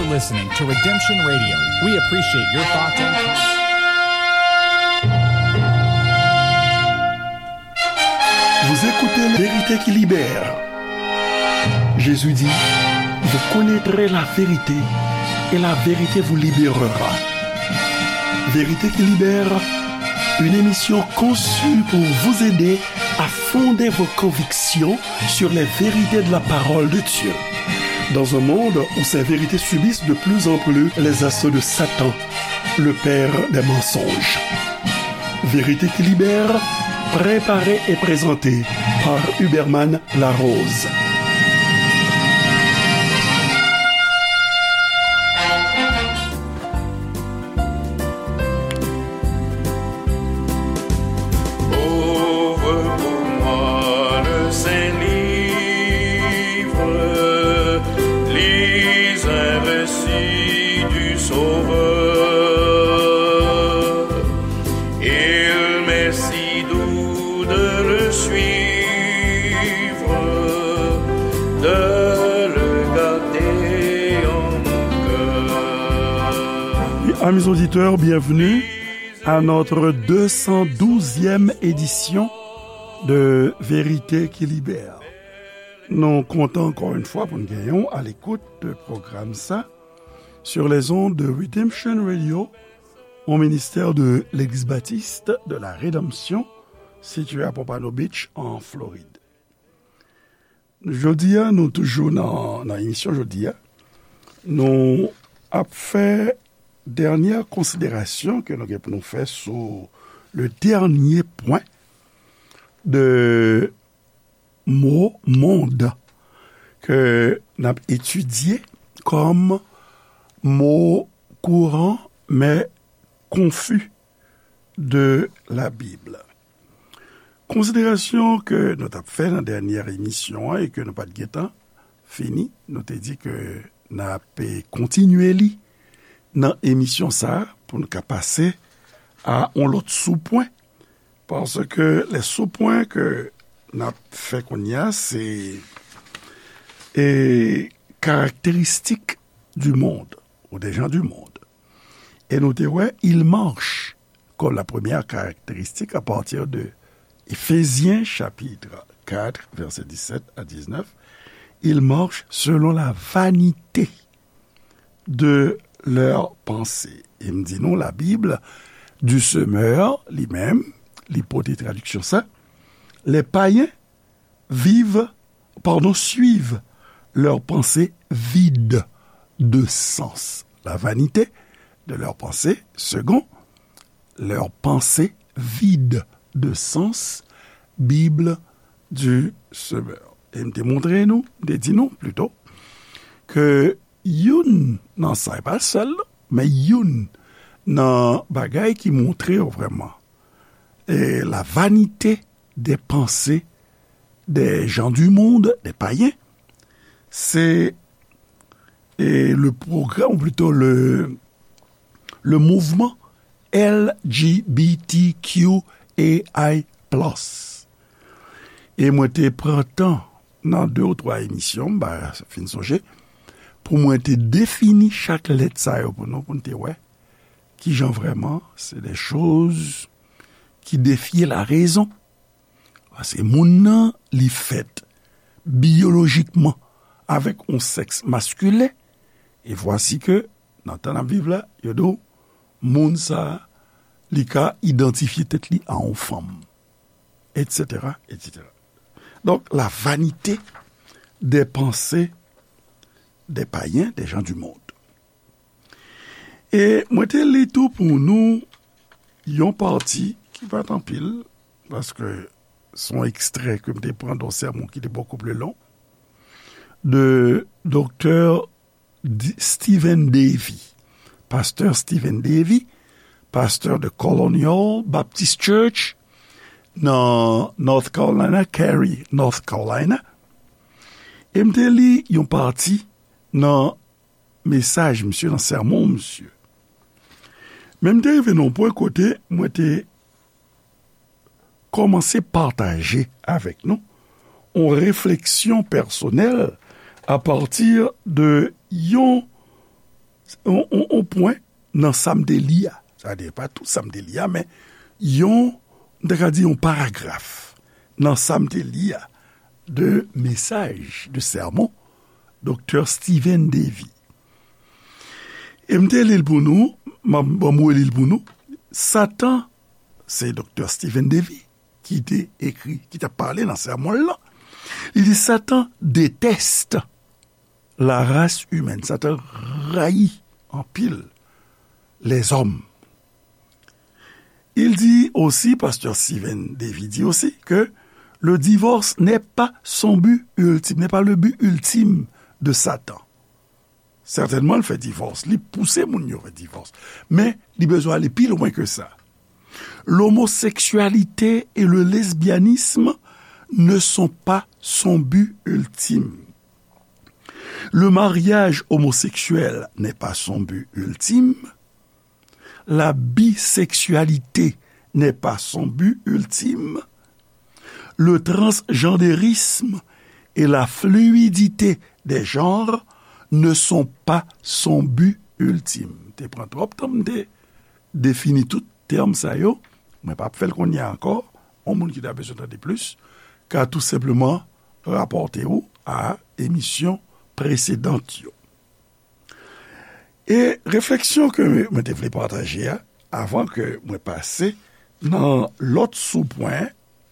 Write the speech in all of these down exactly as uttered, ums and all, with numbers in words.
Listening to Redemption Radio. We appreciate your thoughts and Vous écoutez La Vérité qui libère. Jésus dit, vous connaîtrez la vérité et la vérité vous libérera. Vérité qui libère, une émission conçue pour vous aider à fonder vos convictions sur les vérités de la parole de Dieu. Dans un monde où ces vérités subissent de plus en plus les assauts de Satan, le père des mensonges. Vérité qui libère, préparée et présentée par Huberman Larose. Ouvre pour moi le saint livre, lis un récit du Sauveur. Il m'est si doux de le suivre, de le garder en mon cœur. Amis auditeurs, bienvenue à notre deux cent douzième édition de Vérité qui Libère. Nou kontan ankò yon fwa pou n genyen w alekout de pwogram sa sur les ondes de Redemption Radio, un ministère de l'Église baptiste de la Rédemption, situé à Pompano Beach, en Floride. Jodi a, nou toujou nan, nan emisyon jodi a. Nou ap fè dènyè konsiderasyon ke nou gen pou nou fè sou le dènyè pwen de mo mond ke n ap etidye kòm mo kouran, men konfi de la Bib. Konsiderasyon ke nou t ap fè nan dènyè emisyon an e ke nou pa t gentan fini, nou te di ke n ap kontinye li nan emisyon sa a pou n ka pase a yon lòt soupwen, paske lè soupwen ke n ap fè kounye a, se, e, karakteristik du monde, ou des gens du monde. E nou te wè, il marche comme la première caractéristique à partir de Éphésiens chapitre quatre, verset dix-sept à dix-neuf. Il marche selon la vanité de leurs pensées. E m di nou, la Bible, du semeur, li menm, li pote tradiksyon sa, les païens vivent, pardon, suivent leurs pensées vides de sens. La vanité de leurs pensées, second, leurs pensées vides de sens, Bible du semeur. E m te montre nou, m te di nou, plito, ke youn nan sa, e pa sèl, men youn nan bagay ki montre yo vrèman, e, la vanité des pensées des gens du monde, des païens, c'est, e, le programme, ou plito le, le mouvman L G B T Q A I plus. E mwen te pran tan nan de ou twa emisyon, m pa fin sonje, pou mwen te defini chak lèt sa yo pou nou, pou n te wè kijan vrèman se de choz ki defye la rezon. Paske moun nan, li fèt biyolojikman avèk yon sèks maskilen, e vwasi ke, nan tan n ap viv la, yo di w, moun sa a, li ka idantifye tèt li a yon fanm, et cetera, et cetera. Donk, la vanité des pensées des païens, des gens du monde. E mwen te li tou pou nou yon pati ki pa t anpil, paske se yon ekstrè ke m te pran de yon sèmon ki te bokou pli long, de Doktè D-, Stephen Davey, pastè Stephen Davey, pastè de Colonial Baptist Church nan North Carolina, Cary, North Carolina. E m te li yon pati nan mesaj misye, nan sèmon misye. Men m te rive nan yon pwen kote mwen te kòmanse pataje avèk nou yon refleksyon pèsonèl apati de yon pwen nan sa m te li a. Sa vle di, pa tout sa m te li a, men yon, m ta ka di yon paragraf nan sa m te li a de mesaj, de sèmon Doktè Steven Davey. E m te li l pou nou, m ap, bon, m reli l pou nou. Satan, se Doktè Steven Davey ki te ekri, ki t ap pale nan sèmon l lan. Li di, Satan déteste la race humaine. Satan rayi anpil lèzòm. Il dit aussi, Pasteur Steven Davey dit aussi, que le divorce n'est pas son but ultime, n'est pas le but ultime de Satan. Sètènman, l fè divòs, li pouse moun yo fè divòs. Men, li bezwen ale pi lwen ke sa. L'homosexualité et le lesbianisme ne sont pas son but ultime. Le mariage homosexuel n'est pas son but ultime. La bisexualité n'est pas son but ultime. Le transgenderisme et la fluidité des genres ne sont pas son but ultime. Te pran twòp tan m te defini tout tèm sa yo. Mwen p ap fè l kounye a ankò. Yon moun ki ta bezwen tande plis ka tou senpleman rapòte w a emisyon presedan yo. E refleksyon ke mwen te vle pataje a, avan ke mwen pase nan lòt soupwen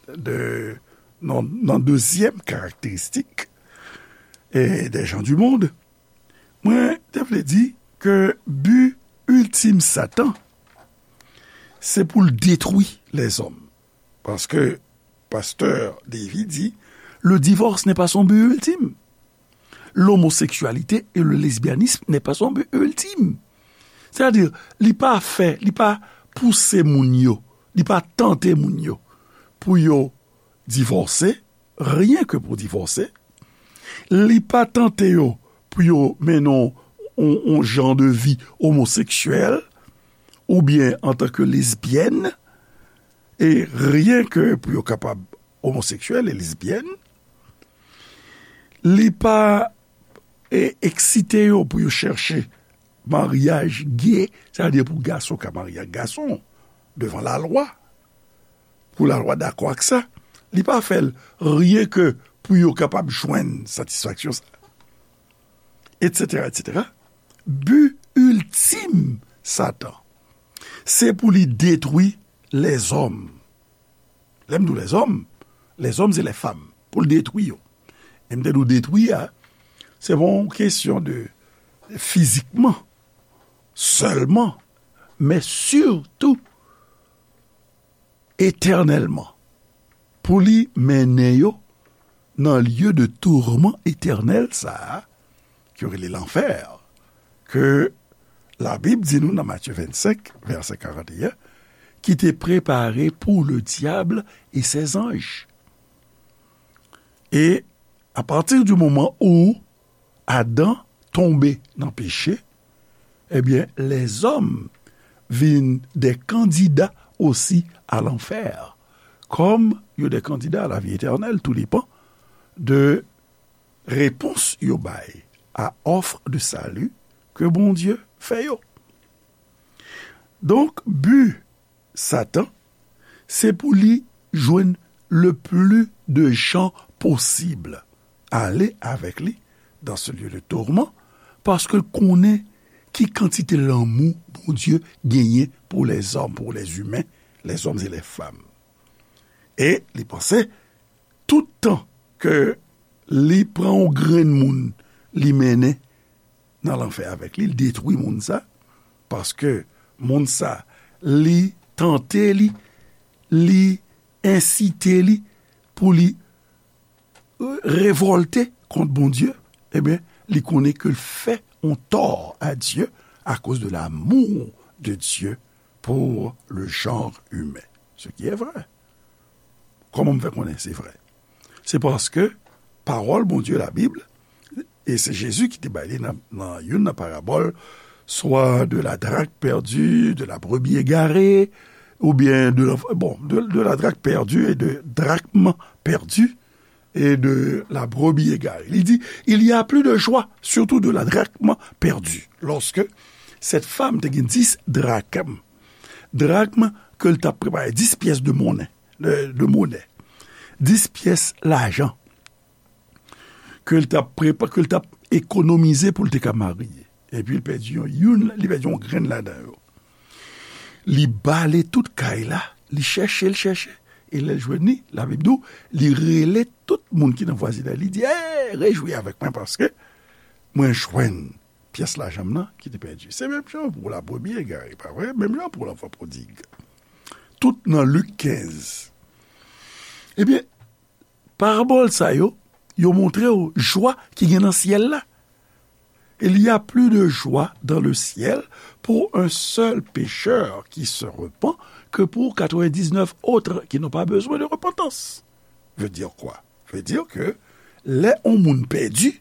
de, nan, nan dezyèm karakteristik e des gens du monde, mwen te vle di ke bi iltim Satan, se pou l detwi lèzòm. Paske Pastè Davey di, le divorce n'est pas son but ultime. L'homosexualité et le lesbianisme n'est pas son but ultime. Sètadi, li pa fè, li pa pouse moun yo, li pa tante moun yo pou yo divòse, ryen ke pou divòse. Li pa tante yo pou yo mennen yon, yon, yon jan de vi omoseksyèl oubyen antanke lesbyèn, e ryen ke pou yo kapab omoseksyèl e lesbyèn. Li pa, e, eksite yo pou yo chèche maryaj ge, sètadi pou gason ka marye ak gason devan lalwa, pou lalwa dakò ak sa. Li pa fè l ryen ke pou yo kapab jwenn satisfaksyon sa, etsetera, etsetera. Bi iltim Satan, se pou li detwi lèzòm. Lè m di w lèzòm, lèzòm se lèfanm, pou l detwi yo. E m te di w detwi a, se pa yon kesyon de fizikman sèlman, men sitou etènèlman, pou li mennen yo nan lye de tourman etènèl sa a, ke yo rele lanfè, ke Labib di nou nan Matye vennsenk, vèsè karanteyen, ki te prepare pou le diable et ses anges. E apati di moman ou Adan tonbe nan peche, ebyen, lèzòm vin de kandida osi a lanfè, kòm yo de kandida a lavi etènèl, tou depan de repons yo bay a òf de sali ke Bondye fè yo. Donk, bi Satan, se pou li jwenn le pli de jan posib ale avèk li dans ce lieu de tourment, paske l konnen ki kantite lanmou Bondye genyen pou lèzòm, pou lèzimen, lèzòm e lèfanm. E li panse, tout tan ke li pran yon grenn moun, li mennen nan lanfè avèk li, li detwi moun sa, paske moun sa, li tante li, li ensite li pou li, euh, revòlte kont Bondye, ebyen, li konnen ke l fè yon tò a Dye akoz de l'amour de Dieu pour le genre humain. Ce qui est vrai. Kòman m fè konnen se vrè? Se paske pawòl Bondye, Labib, e se Jezi ki te bay li nan, nan youn nan parabòl, swa de la drachme perdue, de la brebis égarée, oubyen de la, bon, de, de la drachme perdue et de drachme perdue et de la brebis égarée. Li di, il y a plus de joie, surtout de la drachme perdue, lorsque Sèt fanm te gen dis drakm. Drakm ke l t ap prepare, dis pyès de monnen, de, de monè. Dis pyès lajan ke l t ap prepa-, ke l t ap ekonomize pou l te ka marye. Epi l pèdi yon, youn, li pèdi yon grenn ladan yo. Li bale tout kay la, li chèche, li chèche. E lè l jwenn li, Labib di w, li rele tout moun ki nan vwazinay li, li di, "Ey, rejwi avèk mwen paske mwen jwenn pyès lajan m nan ki te pèdi." Se menm jan pou lapremye egare, pa vre? Menm jan pou lanfan pwodig. Tout nan Lik kenz. Ebyen, parabòl sa yo, yo montre w jwa ki gen nan syèl la. Il y a plus de joie dans le ciel pour un seul pécheur qui se repent que pour quatre-vingt-dix-neuf autres qui n'ont pas besoin de repentance. Veut dire quoi? Veut dire que lè yon moun pèdi,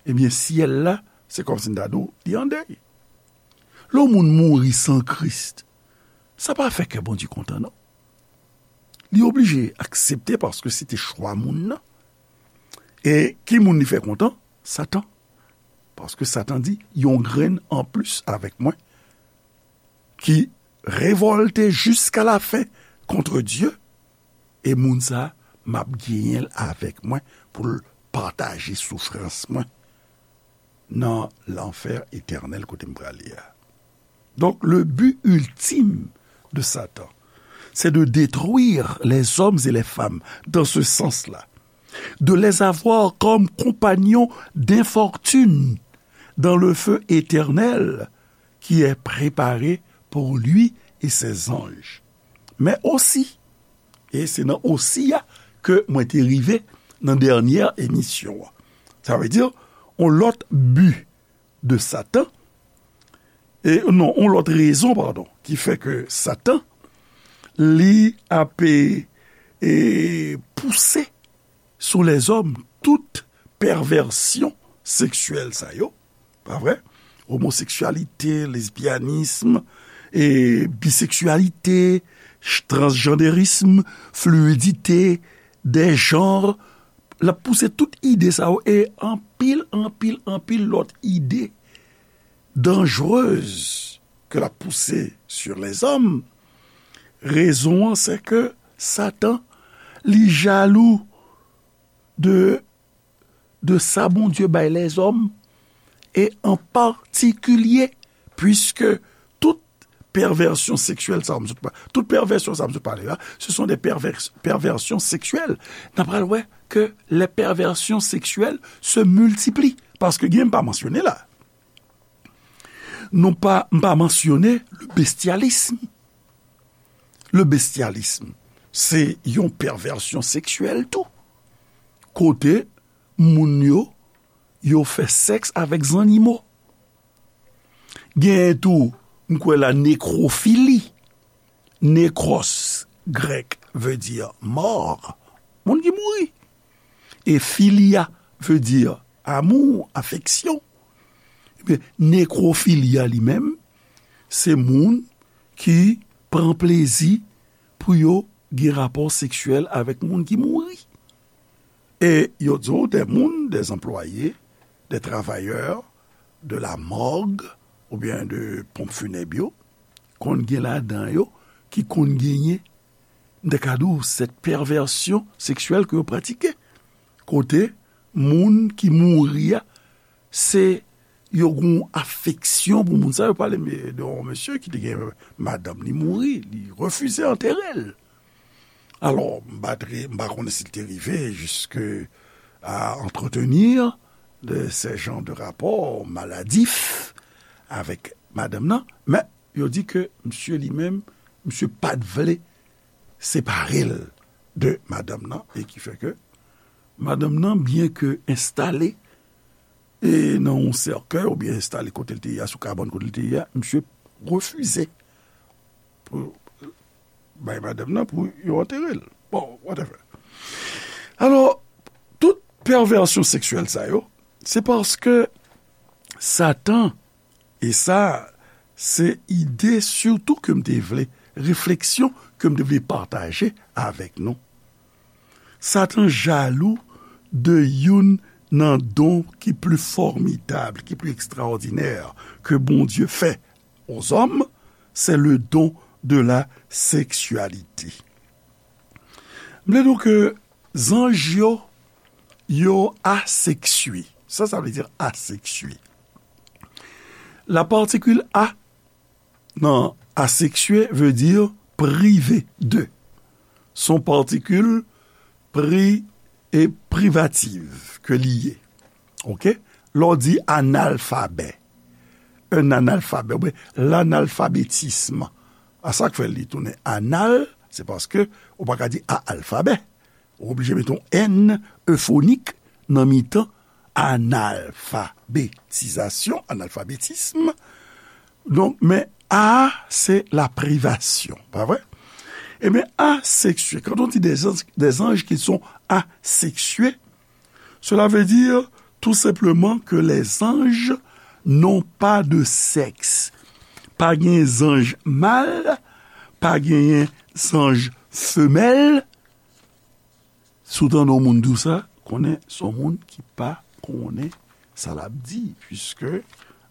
ebyen, syèl la, se kòmsi n ta di w, li an dèy. Lè yon moun mouri san Kris, sa pa fè kè Bondye kontan, non. Li oblije aksepte paske se te chwa moun nan. E ki moun li fè kontan? Satan. Paske Satan di, "Yon grenn anplis avèk mwen ki revòlte jiska lafen kont Dye, e moun sa a, m ap genyen l avèk mwen pou l pataje soufrans mwen nan lanfè etènèl kote m prale a." Donc, le but ultime de Satan, c'est de détruire les hommes et les femmes dans ce sens-là, de les avoir comme compagnons d'infortune dans le feu éternel qui est préparé pour lui et ses anges. Mais aussi, e se nan osi a ke mwen te rive nan dènyè emisyon an. Sa vle di, yon lòt bi de Satan, e non, yon lòt rezon, padon, ki fè ke Satan, li ap, e, e, pouse sou lèzòm tout pèvèsyon seksyèl sa yo, pa vre? Omoseksyalite, lesbyanism, e, biseksyalite, ch-, transjanderism, fluidite, de janr, l ap pouse tout ide sa yo e anpil, anpil, anpil lòt ide danjrez ke l ap pouse sur les hommes. Rezon an, se ke Satan, li jalou de, de sa Bondye bay lèzòm, e an patikilye, puiske tout pèvèsyon seksyèl sa m sot pa-, tout pèvèsyon sa m sot pale la, ce sont des pervers-, perversions sexuelles. N a pral wè ke les perversions sexuelles se multiplient, paske gen, m pa mansyone la. Non pa, m pa mansyone le bestialisme. Le bestialisme, se yon pèvèsyon seksyèl tou. Kote moun yo, yo fè sèks avèk zannimo. Genyen tou, m kwè la, nekrofili. Nekros, grèk, vle di mò. Moun ki mouri. E filia vle di amou, afeksyon. Ebyen, nekrofilia li menm, se moun ki pran plezi pou yo gen rapò seksyèl avèk moun ki mouri. E yo di w, des moun, des employés, des travailleurs de la morgue oubyen de ponp funèb yo, konn gen ladan yo ki konn genyen, m ta ka di w, cette perversion sexuelle ke yo pratike. Kote moun ki mouri a, se yo gen yon afeksyon pou moun sa. Yo pale de yon mesye ki te gen madanm li mouri, li refize antere l. Alò, m pa tre-, m pa konnen si l te rive jiske a entretenir de ces genres de rapports maladifs avèk madanm nan, men yo di ke misye li menm, misye pa t vle separe l de madanm nan, e ki fè ke madanm nan, byen ke enstale e nan yon sèkèy oubyen enstale kote l te ye a, sou kabann kote l te ye a, misye refize pou bay madanm nan pou yo antere l. Bon, whatever. Alò, tout pèvèsyon seksyèl sa yo, se paske Satan, e sa, se ide sitou ke m te vle, refleksyon ke m te vle pataje avèk nou. Satan jalou de youn nan don ki pli fòmidab, ki pli ekstraòdinè ke Bondye fè aux hommes, c'est le don de la sexualité. M vle di w ke zanj yo, yo aseksye. Sa, sa vle di aseksye. La particule a nan aseksye veut dire privé de. Son particule pri e privative ke li ye. Oke? Lè w di analfabè, un analfabè, oubyen lanalfabetism. A sa k fè li tounen anal, se paske ou pa ka di a alfabè. Ou oblije mete yon N efonik nan mitan analfabetizasyon, analfabetism. Donk, men a, se la privasyon, pa vre? Ebyen, aseksye, quand on dit des anges, des anges qui sont asexués, cela veut dire tout simplement que les anges n'ont pas de sexe. Pa gen zanj mal, pa genyen zanj femèl. Si w tande yon moun di w sa, konnen se yon moun ki pa konnen sa l ap di, puiske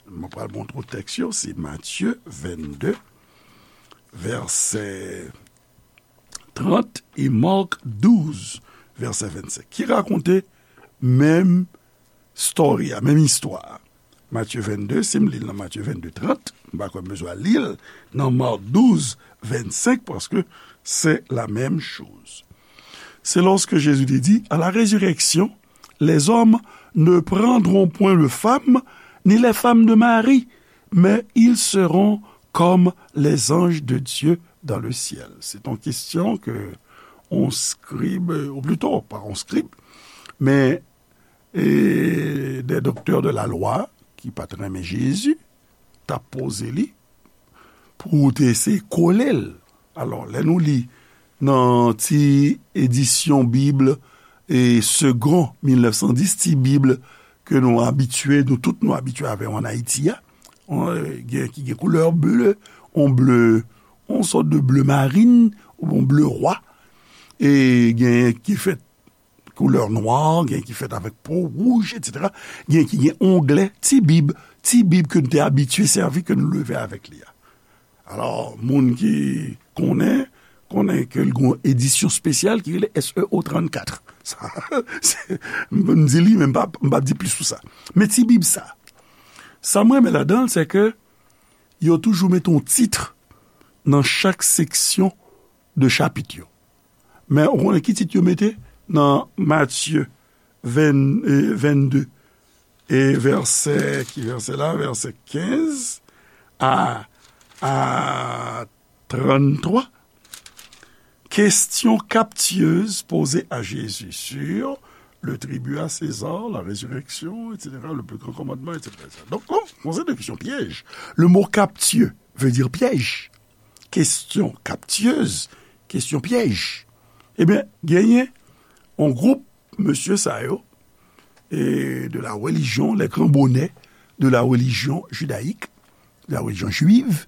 mwen pral montre w tèks yo, se Matye vennde, vèsè trant, e Mak douz, vèsè vennsenk, ki rakonte menm story a, menm istwa a. Matye vennde, si m li l nan Matye vennde trant, m pa kwè m bezwen al li l nan Mak douz, vennsenk, paske c'est la même chose. C'est lorsque Jésus te dit, à la résurrection, les hommes ne prendront point de femme, ni les femmes de mari, mais ils seront comme les anges de Dieu dans le ciel. C'est une question que on scribe, ou plutôt, pas on scribe, mais e des docteurs de la loi ki pa t renmen Jezi, t ap poze li pou te eseye kole l. Alò, lè nou li nan ti edisyon Bib, e Segond mil nèf san dis, ti Bib ke nou abitye, nou tout nou abitye avè l ann Ayiti a, on, gen ki gen koulè ble, on ble, on sòt de ble marin, ou on ble rwa, e gen ki fèt koulè nwa, gen ki fèt avèk po wouj, etsetera. Gen ki gen onglè, ti Bib, ti Bib ke nou te abitye sèvi, ke nou leve avèk li a. Alò, moun ki konnen, konnen ke l gen yon edisyon espesyal ki rele S E O trannkat. Sa, se, m di li, men m pa, m pa di plis sou sa. Men ti Bib sa, sa m renmen ladan l, se ke yo toujou mete yon tit nan chak seksyon de chapit yo. Men ou konnen ki tit yo mete nan Matye ven, e, vennde, e vèsè, ki vèsè la? Vèsè kenz a, a tranntwa. Question captieuse posée à Jésus sur le tribut à César, la résurrection, et cetera, le plus grand commandement, et cetera, et cetera. Donk, yon, yon seri de kesyon pyèj. Le mot captieux veut dire piège. Question captieuse, kesyon pyèj. Ebyen, genyen yon gwoup mesye sa yo, e de la religion, les grands bonnets de la religion judaïque, de la religion juive,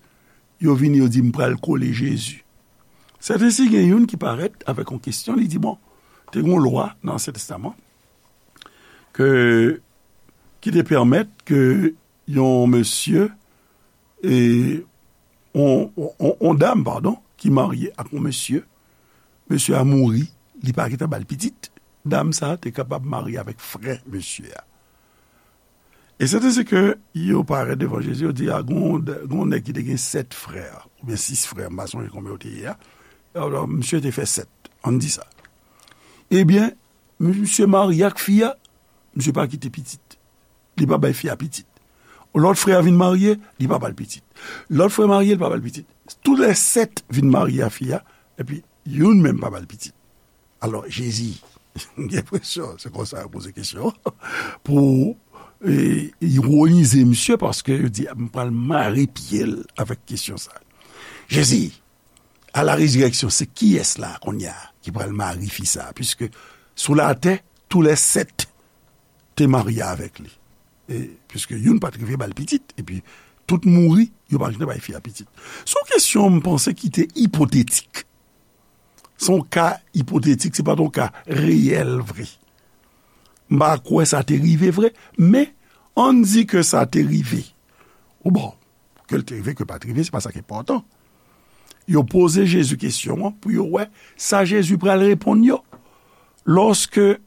yo vini, yo di, "M pral kole Jezi." Sèten si gen youn ki parèt avèk yon kesyon, li di, "Bon, te gen yon lwa nan Ansyen Testaman ke, ki te pèmèt ke yon mesye, e, on, on, on, on dam, padon, ki marye ak yon mesye, mesye a mouri, li pa gentan ba l pitit, dam sa a te kapab marye avèk frè mesye a." E sèten si ke yo parèt devan Jezi, yo di, "A, gon, gon nèg ki te gen sèt frè, oubyen sis frè, m pa sonje konbyen yo te ye a. Alò, misye te fè sèt, ann di sa. Ebyen, misye marye ak fi a, misye pa kite pitit. Li pa bay fi a pitit. Lòt frè a vin marye, li pa ba l pitit. Lòt frè marye, li pa ba l pitit. Toulèsèt vin marye a fi a, epi youn menm pa ba l pitit." Alò, Jezi, m gen enpresyon, se konsa yo poze kesyon, pou, e, ironize misye, paske yo di, "M pral mare pye l avèk kesyon sa." Jezi, a la rezirèksyon, se kiyès la, kounye a, ki pral mare fi sa? Piske sou latè, toulèsèt te marye avèk li. E, piske youn pa t rive ba l pitit, epi tout mouri, yo pa t rive bay fi a pitit. Se yon kesyon, m panse, ki te ipotetik. Se yon ka ipotetik, se pa t yon ka reyèl vre. M pa kwè sa te rive vre, men ann di ke sa te rive. Ou bon, Ke l te rive, ke l pa t rive, se pa sa k enpòtan. Yo poze Jezi kesyon an pou yo wè sa Jezi pral reponn yo. Lòske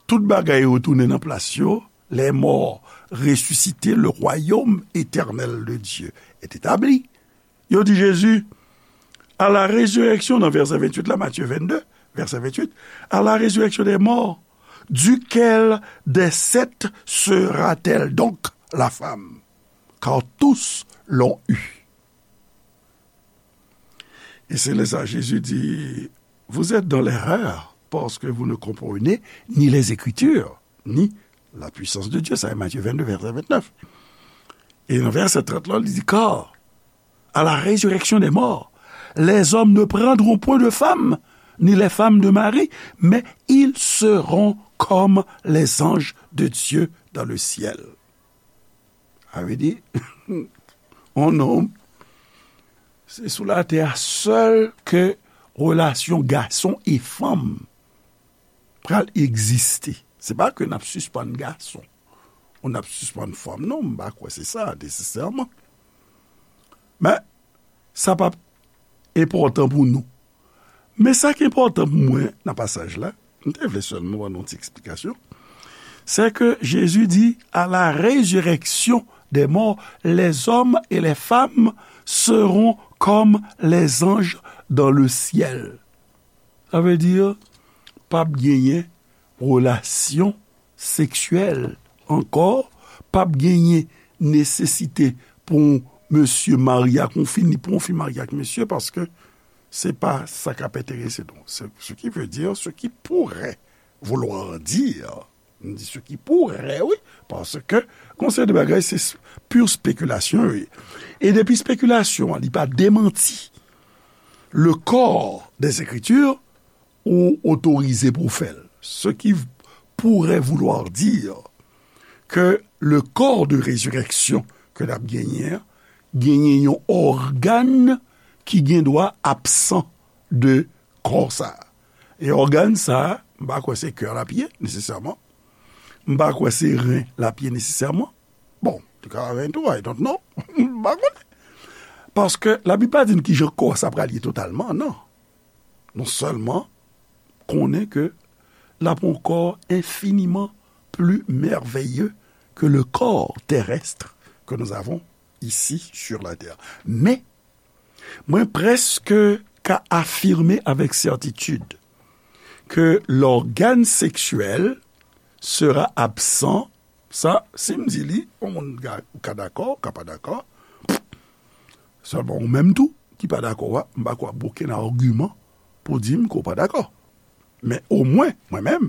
tout bagay retounen nan plas yo, les morts ressuscités, le royaume éternel de Dieu est établi. Yo di Jezi, à la résurrection, nan vèsè venntuit la, Matthieu vingt-deux, vèsè venntuit, à la résurrection des morts, duquel des sept sera-t-elle donc la femme? Car tous l'ont eu. Et c'est là ça Jésus dit, vous êtes dans l'erreur parce que vous ne comprenez ni les Écritures, ni la puissance de Dieu. Ça, c'est Matthieu vingt-deux, verset vingt-neuf. Et dans verset trente, là, il dit, car à la résurrection des morts, les hommes ne prendront point de femme, ni les femmes de mari, mais ils seront comme les anges de Dieu dans le ciel. Sa vle di, yon nonm, se sou latè a sèl ke relasyon gason e fanm pral egziste. Se pa ke n ap sispann gason, ou n ap sispann fanm, non, m pa kwè se sa, nesesèman. Men, sa p ap enpòtan pou nou. Men sa ki enpòtan pou mwen nan pasaj la, m te vle sèlman ban nou yon ti eksplikasyon, c'est que Jésus dit, à la résurrection des morts, les hommes et les femmes seront comme les anges dans le ciel. Sa vle di, p ap genyen relasyon seksyèl ankò, p ap genyen nesesite pou yon mesye marye ak yon fi, ni pou yon fi marye ak mesye, paske se pa sa k ap enterese nou. Se, ce qui veut dire, ce qui pourrait vouloir dire, m di ce qui pourrait, wi, paske gon seri de bagay, se s-, pure spéculation, wi. E depi spekilasyon an, li pa demanti le corps des Écritures, ou otorize pou w fè l. Ce qui pourrait vouloir dire que le corps de résurrection ke n ap genyen an, genyen yon ògàn ki gen dwa absan de kò sa a. E ògàn sa a, m pa kwè se kè l ap ye, nesesèman. M pa kwè se ren l ap ye, nesesèman. Bon, te ka ren tou, I don't know. M pa konnen. Paske Labib pa di n kijan kò sa pral ye totalman, non. Nou sèlman konnen ke l ap yon kò enfiniman pli mèveye ke le corps terrestre que nous avons ici sur la terre. Men, mwen prèske ka afime avèk sètitid ke lògàn seksyèl sera absan. Sa, si m di li, yon moun ka, ou ka dakò, ou ka pa dakò. Sèlman ou menm tou ki pa dakò a, m pa kwè ap gen okenn agiman pou di m ke w pa dakò. Men omwen, mwen menm,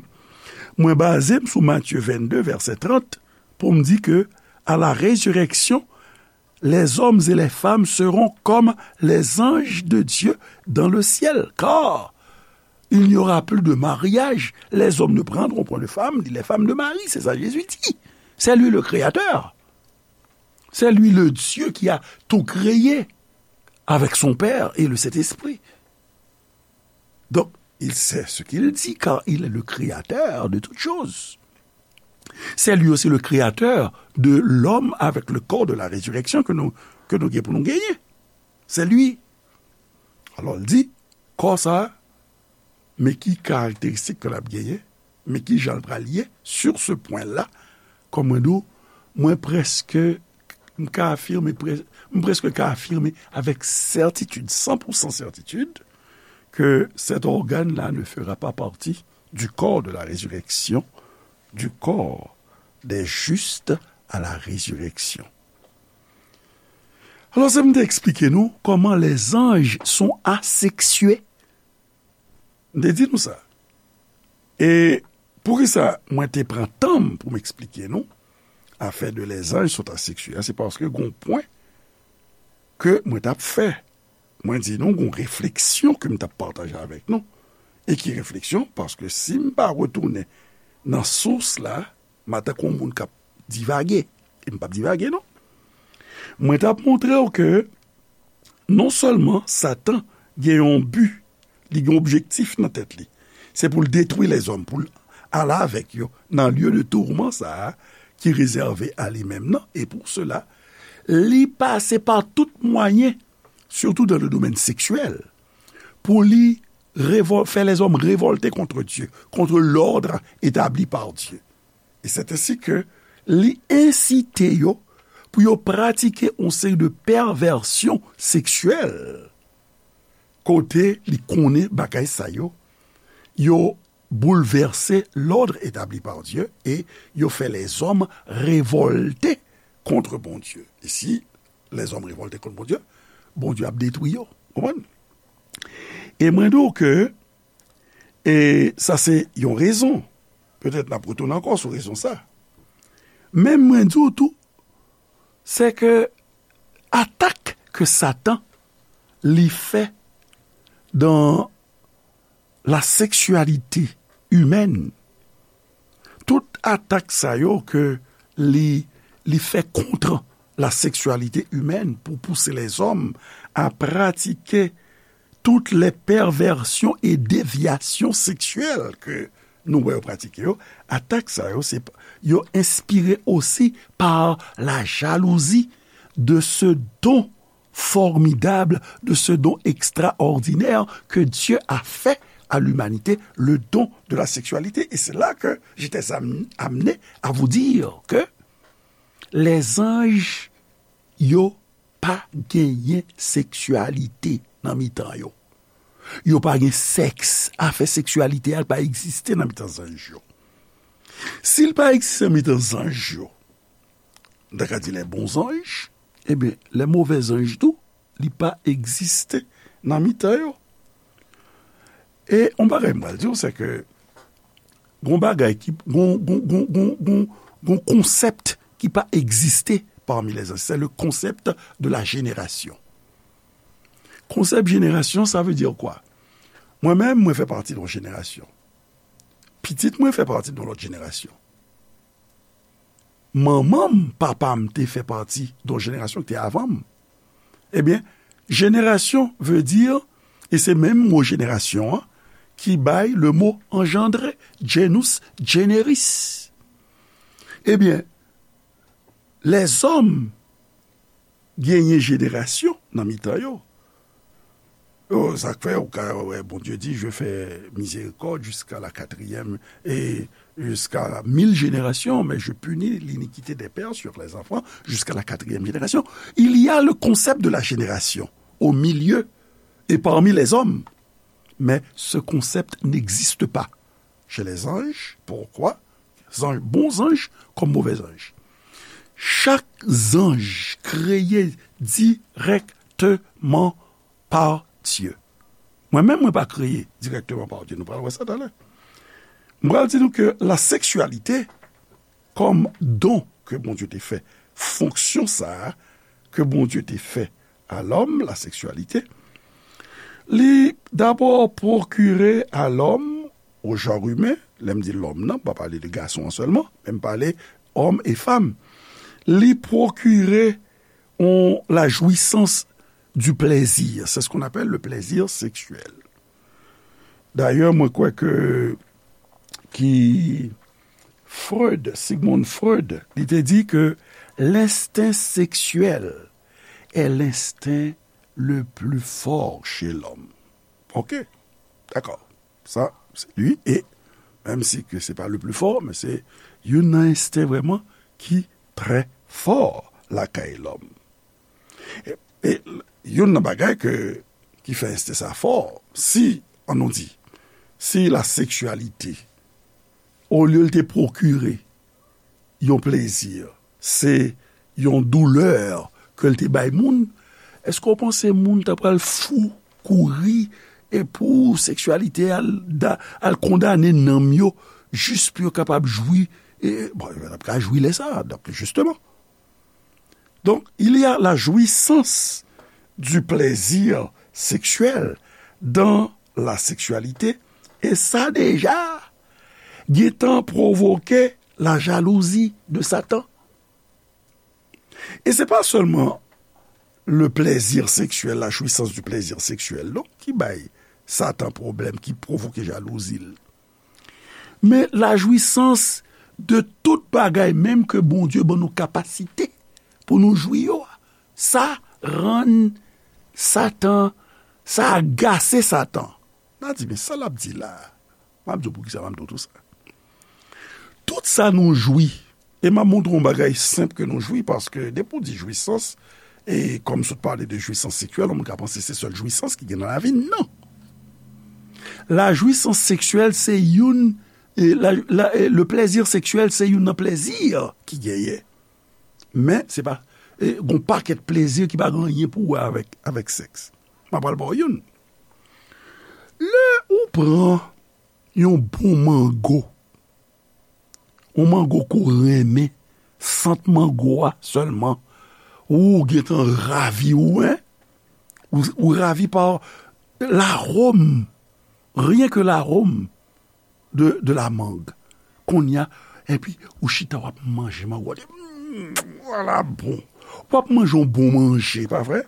mwen baze m sou Matye vennde, vèsè trant, pou m di ke, à la résurrection, les hommes et les femmes seront comme les anges de Dieu dans le ciel, car il n'y aura plus de mariage, les hommes ne prendront point de femme, ni les femmes de mari, c'est ça Jésus dit. C'est lui le créateur. C'est lui le Dieu qui a tout créé avec son Père et le Saint-Esprit. Donc, il sait ce qu'il dit, car il est le créateur de toutes choses. C'est lui aussi le créateur de l'homme avec le corps de la résurrection que nou, ke nou gen pou nou genyen. C'est lui. Alò, l di, kò sa a, men ki karakteristik ke l ap genyen, men ki jan l pral ye, sur ce point-là, kòm mwen di w, mwen prèske, m ka afime, prè-, m prèske ka afime avèk sètitid, san pou san sètitid, que cet organe-là ne fera pas partie du corps de la résurrection, du corps des justes à la résurrection. Alò, se m te eksplike nou comment les anges sont asexués. M te di nou sa. E poukisa mwen te pran tan m pou m eksplike nou afè de les anges sont asexués a, se paske gon pwen ke mwen t ap fè. Mwen di nou gon refleksyon ke m t ap pataje avèk nou. E ki refleksyon? Paske si m pa retounen nan sous la, m a tankou yon moun k ap divage. E m p ap divage, non. Mwen t ap montre w ke non sèlman Satan gen yon bi, li gen objektif nan tèt li. Se pou l detwi lèzòm, pou l ale avèk yo nan lye de tourman sa a ki rezève a li menm nan. E pou sela, li pase pa tout mwayen, surtout dans le domaine sexuel, pou li révol-, fè lèzòm revòlte kont Dye, kont lòd etabli pa Dye. E se ensi ke li ensite yo pou yo pratike yon seri de pèvèsyon seksyèl, kote li konnen bagay sa yo, yo boulvèse lòd etabli pa Dye e yo fè lèzòm revòlte kont Bondye. E si lèzòm revòlte kont Bondye, Bondye ap detwi yo. Konprann? E mwen di w ke, e sa se yon rezon. Petèt n ap retounen ankò sou rezon sa. Men mwen di w tou, se ke atak ke Satan li fè dans la sexualité humaine, tout atak sa yo ke li, li fè kont la sexualité humaine pou pouse lèzòm a pratike toutes les perversions et déviations sexuelles ke nou wè yo pratike yo, atak sa yo, se, yo enspire osi par la jalousie de ce don formidable, de ce don extraordinaire que Dieu a fait à l'humanité, le don de la sexualité. Et c'est là que j'étais am-, amené à vous dire que les anges, yo pa genyen seksyalite nan mitan yo. Yo pa gen sèks. Afè seksyalite a pa egziste nan mitan zanj yo. Si l pa egziste nan mitan zanj yo, n ta ka di les bons anges, ebyen, les mauvais anges tou, li pa egziste nan mitan yo. E yon bagay m pral di w, se ke gon bagay ki, gon, gon, gon, gon, gon, gon konsèp ki pa egziste parmi les anges. C'est le concept de la génération. Konsèp jenerasyon, sa vle di kwa? Mwen menm, mwen fè pati de yon jenerasyon. Pitit mwen fè pati de yon lòt jenerasyon. Manman m, papa m te fè pati de yon jenerasyon ki te avan m. Ebyen, jenerasyon vle di, e se menm mo jenerasyon an ki bay le mo engendré, genus, generis. Ebyen, lèzòm genyen jenerasyon nan mitan yo. Oh, sa k fè ou ka wè Bondye di, je fais miséricorde jusqu'à la quatrième et jusqu'à mille générations, mais je punis l'iniquité des pères sur les enfants jusqu'à la quatrième génération. Il y a le concept de la génération au milieu et parmi les hommes. Mais ce concept n'existe pas chez les anges. Pourquoi? Zanj, bon zanj kòm movè zanj. Chak zanj kreye dirèkteman pa Dye. Mwen menm, mwen pa kreye dirèkteman pa Dye. Nou pral wè sa talè. Mwen pral di nou ke la seksyalite kòm don ke Bondye te fè, fonksyon sa a ke Bondye te fè a lòm, la seksyalite, li dabò pwokire a lòm, au genre humain, lè m di lòm nan, m pa pale de gason an sèlman, men m pale homme et femme, li pwokire on, la jouissance du plaisir. C'est ce qu'on appelle le plaisir sexuel. Dayè, mwen kwè ke ki Freud, Sigmund Freud, li te di ke l'instinct sexuel est l'instinct le plus fort chez l'homme. Ok, dakò. Sa, se li. E menm si ke se pa le plus fort, men se youn nan ensten vrèman ki trè fò lakay lòm. E, e youn nan bagay ke, ki fè ensten sa fò, si, ann nou di, si la seksyalite, olye l te pwokire yon plezi, se yon doulè ke l te bay moun, èske w panse moun ta pral fou, kouri, e pou seksyalite al, da, al kondane nanm yo, jis pou yo kapab jwi, e, bon, yo t ap ka jwi lè sa a, donk, jisteman. Donc, il y a la jouissance du plaisir sexuel dans la sexualité, e sa deja gentan pwovoke la jalouzi de Satan. E se pa sèlman le plaisir sexuel, la jouissance du plaisir sexuel, non, ki bay Satan pwoblèm, ki pwovoke jalouzi l. Men la jouissance de tout bagay menm ke Bondye ban nou kapasite pou nou jwi yo a. Sa rann Satan, sa agase Satan. N a di, men sa l ap di la a? M ap di w poukisa m ap di w tou sa. Tout sa nou jwi, e m ap montre w yon bagay senp ke nou jwi, paske depi w di jwisans, e kòm sot pale de jwisans seksyèl, yon moun ka panse se sèl jwisans ki gen nan lavi n. Non. La jouissance sexuelle, se youn, e la, la, e le plaisir sexuel, se youn nan plèzi ki genyen. Men, se pa, e, gon pakèt plezi ki pa gen anyen pou wè avèk, avèk sèks. M ap pral ba w youn. Lè ou pran yon bon mango, yon mango ke w renmen, sant mango a sèlman, ou gentan ravi, ou, en? Ou, ou ravi pa laròm, rien que l'arôme de, de la mangue. Kounye a, epi ou chita w ap manje mango a, di, "Mm, voilà bon." W ap manje yon bon manje, pa vre?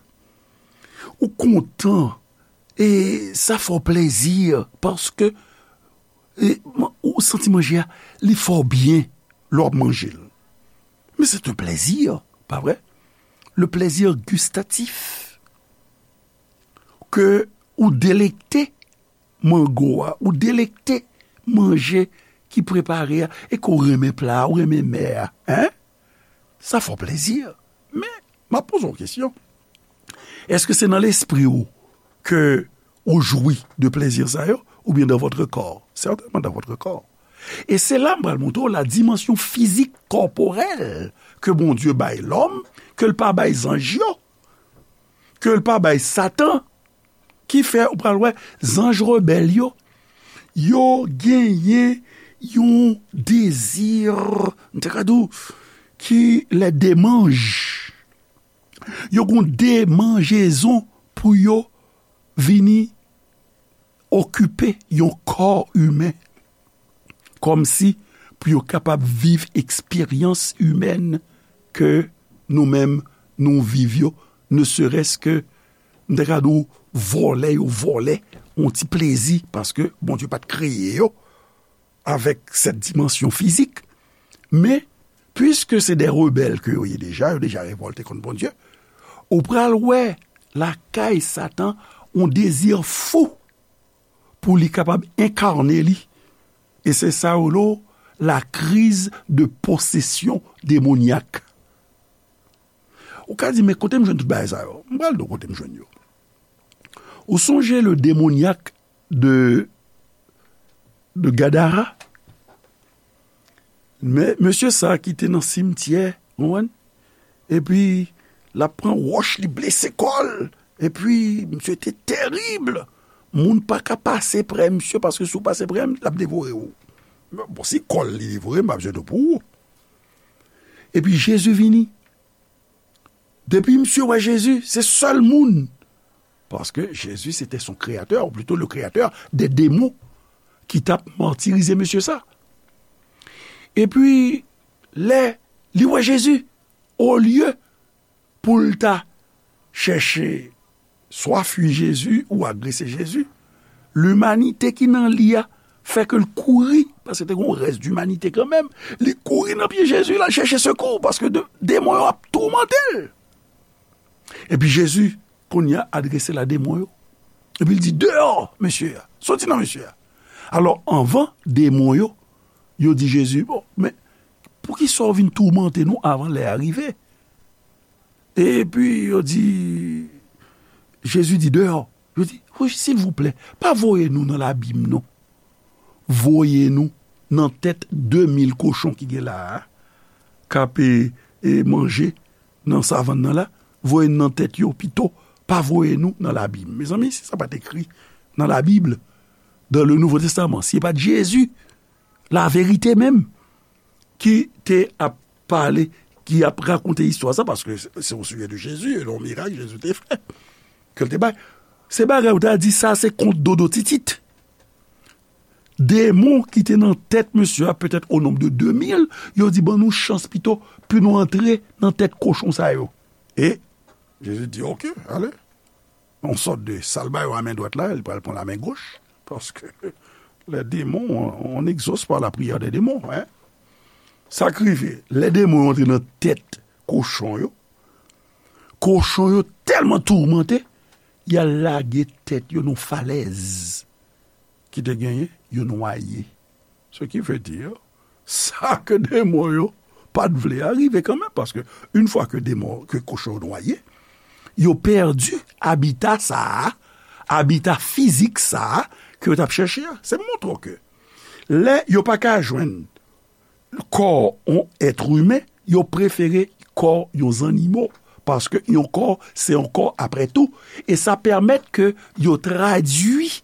Ou kontan, e sa fè w plezi, paske, e, man-, ou santi manje a, li fè w byen lè w ap manje l. Men se yon plezi, pa vre? Le plaisir gustatif. Ke ou delekte mango a, ou delekte manje ki prepare a, e ke w renmen pla a, ou renmen mè a, en? Sa fè w plezi. Men, m ap poze w kesyon. Èske se nan lespri w ke ou jwi de plezi sa yo, oubyen dans votre corps? Certainement dans votre corps. E se la m pral montre w la dimansyon fizik, kòporèl, ke Bondye bay lòm, ke l pa bay zanj yo, ke l pa bay Satan, ki fè ou pral wè zanj rebèl yo, yo genyen yon dezi, m te ka di w, ki lè demanj. Yo gon demanjezon pou yo vini okipe yon kò imen, kòmsi pou yo kapab viv eksperyans imèn ke nou menm nou viv yo, ne serait-ce que, m ta ka di w, vòlè yo vòlè yon ti plezi, paske Bondye pa t kreye yo avèk sèt dimansyon fizik. Men, piske se de rebèl ke yo ye deja, yo deja revòlte kont Bondye, ou pral wè lakay Satan yon dezi fou pou li kapab enkane li. E se sa yo rele la crise de possession démoniaque. Ou ka di, "Men kote m jwenn tout bagay sa yo?" M pral di w kote m jwenn yo. Ou sonje le démoniaque de, de Gadara? Men, mesye sa ki te nan simtyè, ou konprann? Epi, l ap pran wòch, li blese kò l. Epi, misye te terib. Moun pa ka pase prè misye, paske si w pase prè l, l ap devore w. Bon, si kò l li devore, m pa bezwen di w pou ou. Epi, Jezi vini. Depi misye wè Jezi, se sèl moun. Paske Jezi, se te son kreyatè, ou plito le kreyatè de demon, ki t ap matirize mesye sa. Epi, lè li wè Jezi, olye pou l ta chèche swa fui Jezi ou agrese Jezi, limanite ki nan li a fè ke l kouri, paske te gen yon rès dimanite kanmenm, li kouri nan pye Jezi, l al chèche sekou, paske de-, demon yo ap toumante l. Epi Jezi, kounye a, adrese l a demon yo. Epi l di, "Deyò, mesye a, soti nan mesye a." Alò, anvan demon yo, yo di Jezi, "Bon, men poukisa w vin toumante nou avan lè a rive?" Epi yo di, Jezi di, "Deyò." Yo di, "Wi, silvouplè, pa voye nou nan labim, non. Voye nou nan tèt de mil kochon ki gen la a, k ap, e, e, manje nan savann nan la. Voye n nan tèt yo pito, pa voye nou nan labim." Mezanmi, si sa pa t ekri nan Labib, dans le Nouveau Testament, si e pa t Jezi, laverite menm, ki te ap pale, ki ap rakonte istwa sa, paske se, se au sujet de Jésus, e yon mirak Jezi te fè, ke l te bay. Se bagay ou ta di sa, se kont Dodo Titit. Demon ki te nan tèt mesye a, petèt o nonb de de mil, yo di, "Ban nou chans pito, pou nou antre nan tèt kochon sa yo." E Jezi di, "Oke, ale." Yon sòt de sa l ba yo a men dwat la, li pral pran la men goch, paske les démons, on, on exauce par la prière des démons, hein. Sa k rive, lè demon yo antre nan tèt kochon yo, kochon yo tèlman toumante, y al lage tèt yo nan falèz ki te genyen, yo nwaye. Ce qui veut dire, sa ke demon yo pa t vle a rive kanmenm, paske yon fwa ke demon, ke kochon yo nwaye, yo pèdi abita sa a, abita fizik sa a ke yo t ap chèche a. Se montre w ke lè yo pa ka jwenn kò yon èt imen, yo prefere kò yon zannimo, paske yon kò, se yon kò apre tou, e sa pèmèt ke yo tradui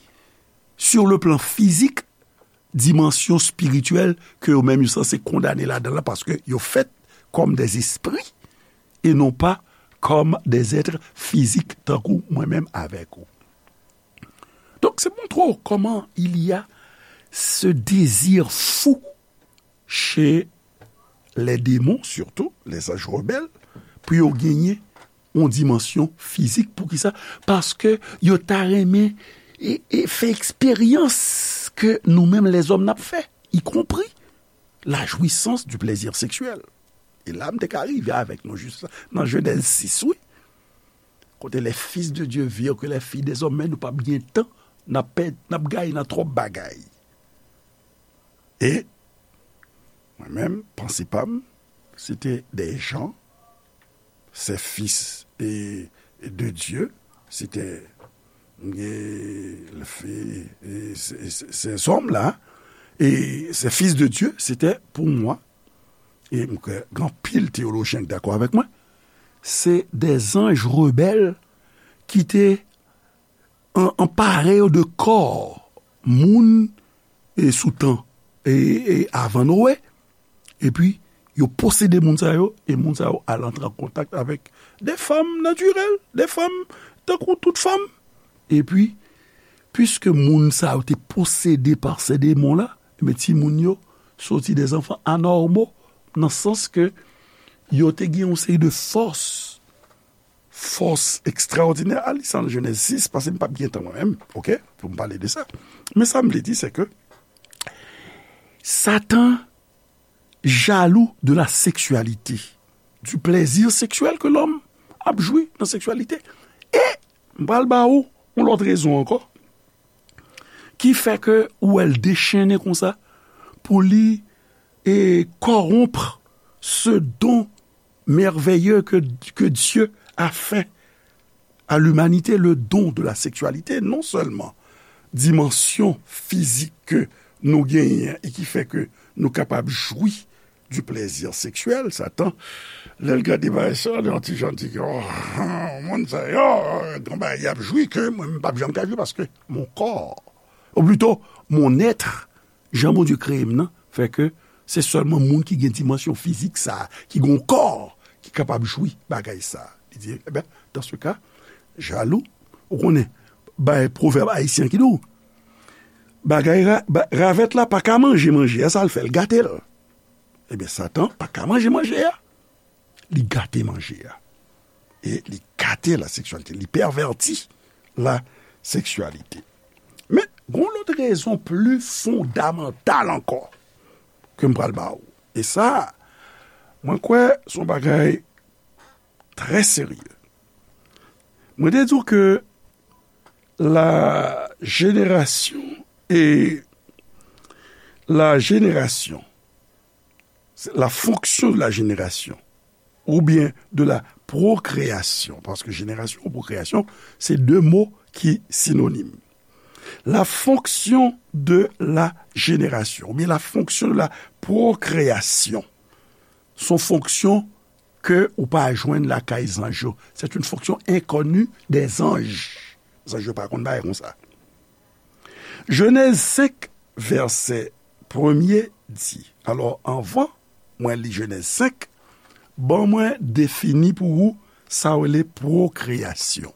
sur le plan fizik dimansyon espirityèl ke yo menm yo sanse kondane ladan l la, paske yo fèt kòm des esprits e non pa kòm des êtres physiques tankou mwen menm avèk ou. Donk, se montre w kòman il y a ce désir fou chez les démons, surtout les anges rebelles, pou yo genyen yon dimansyon fizik. Poukisa? Paske yo ta renmen e, e fè eksperyans ke nou menm lèzòm n ap fè, y compris la jouissance du plaisir sexuel. E la, m te ka rive avèk nou jis nan Jenèz sis, wi. Kote les fils de Dieu virent que les filles des hommes, men nou p ap gen tan, n ap pèd, n ap gaye nan twòp bagay. E mwen menm, panse pa m, se te des gens, ces fils et, et de Dieu, c'était, e, le fait, e, ces, ces, ces hommes-là, et ces fils de Dieu, c'était pour moi, e m kwè gen anpil teyolojyen k dakò avèk mwen, se des anges rebelles ki te an, anpare yo de kò moun e sou tan e, e avan Noe, epi yo posede moun sa yo, e moun sa yo al antre an kontak avèk de fanm natirèl, de fanm tankou tout fanm. Epi, piske moun sa yo te posede pa se demon la, ebyen, timoun yo soti des enfants anormaux, nan sans ke yo te gen yon seri de fòs, fòs ekstraòdinè. Al li sa nan Jenèz sis, paske m p ap gen tan mwen menm, oke, pou m pale de sa. Men sa m vle di, se ke Satan jaloux de la sexualité, du plaisir sexuel que l'homme ap jwi nan seksyalite. E m pral ba ou yon lòt rezon ankò ki fè ke ou wè l dechennen konsa pou li e corrompre ce don merveilleux que, que Dieu a fait à l'humanité, le don de la sexualité, non seulement dimansyon fizik ke nou genyen e ki fè ke nou kapab jwi du plaisir sexuel, Satan, lè l gade bagay sa, li yon ti jan di, oh, moun sa yo, gen bagay y ap jwi ke mwen, m p ap janm ka jwi paske mon corps, ou plito, mon être, jan Bondye kreye m nan, fè ke se sèlman moun ki gen dimansyon fizik sa, ki gen yon kò, ki kapab jwi bagay sa. Li di, eben, dans ce cas, jaloux, ou konnen, bay pwovèb ayisyen ki di w, bagay ra-, ba-, ravèt la pa ka manje manje a, sa l fè, l gate l. Ebyen, Satan pa ka manje manje a. Li gate manje a. E li gate la seksyalite. Li pèvèti la seksyalite. Men, gen yon lòt rezon pli fondamantal ankò ke m pral ba ou. E sa, mwen kwè se yon bagay trè serye. Mwen te di w ke la génération et la génération, la fonction de la génération ou bien de la procréation, paske jenerasyon e pwokreasyon, se de mo ki sinonim. La fonction de la génération ou bien la fonction de la procréation, se yon fonksyon ke ou pa jwenn lakay zanj yo. C'est une fonction inconnue des anges. Zanj yo pa konn bagay konsa. Jenèz senk, vèsè premye di, alò, anvan mwen li Jenèz senk, ban mwen defini pou ou sa w rele pwokreyasyon.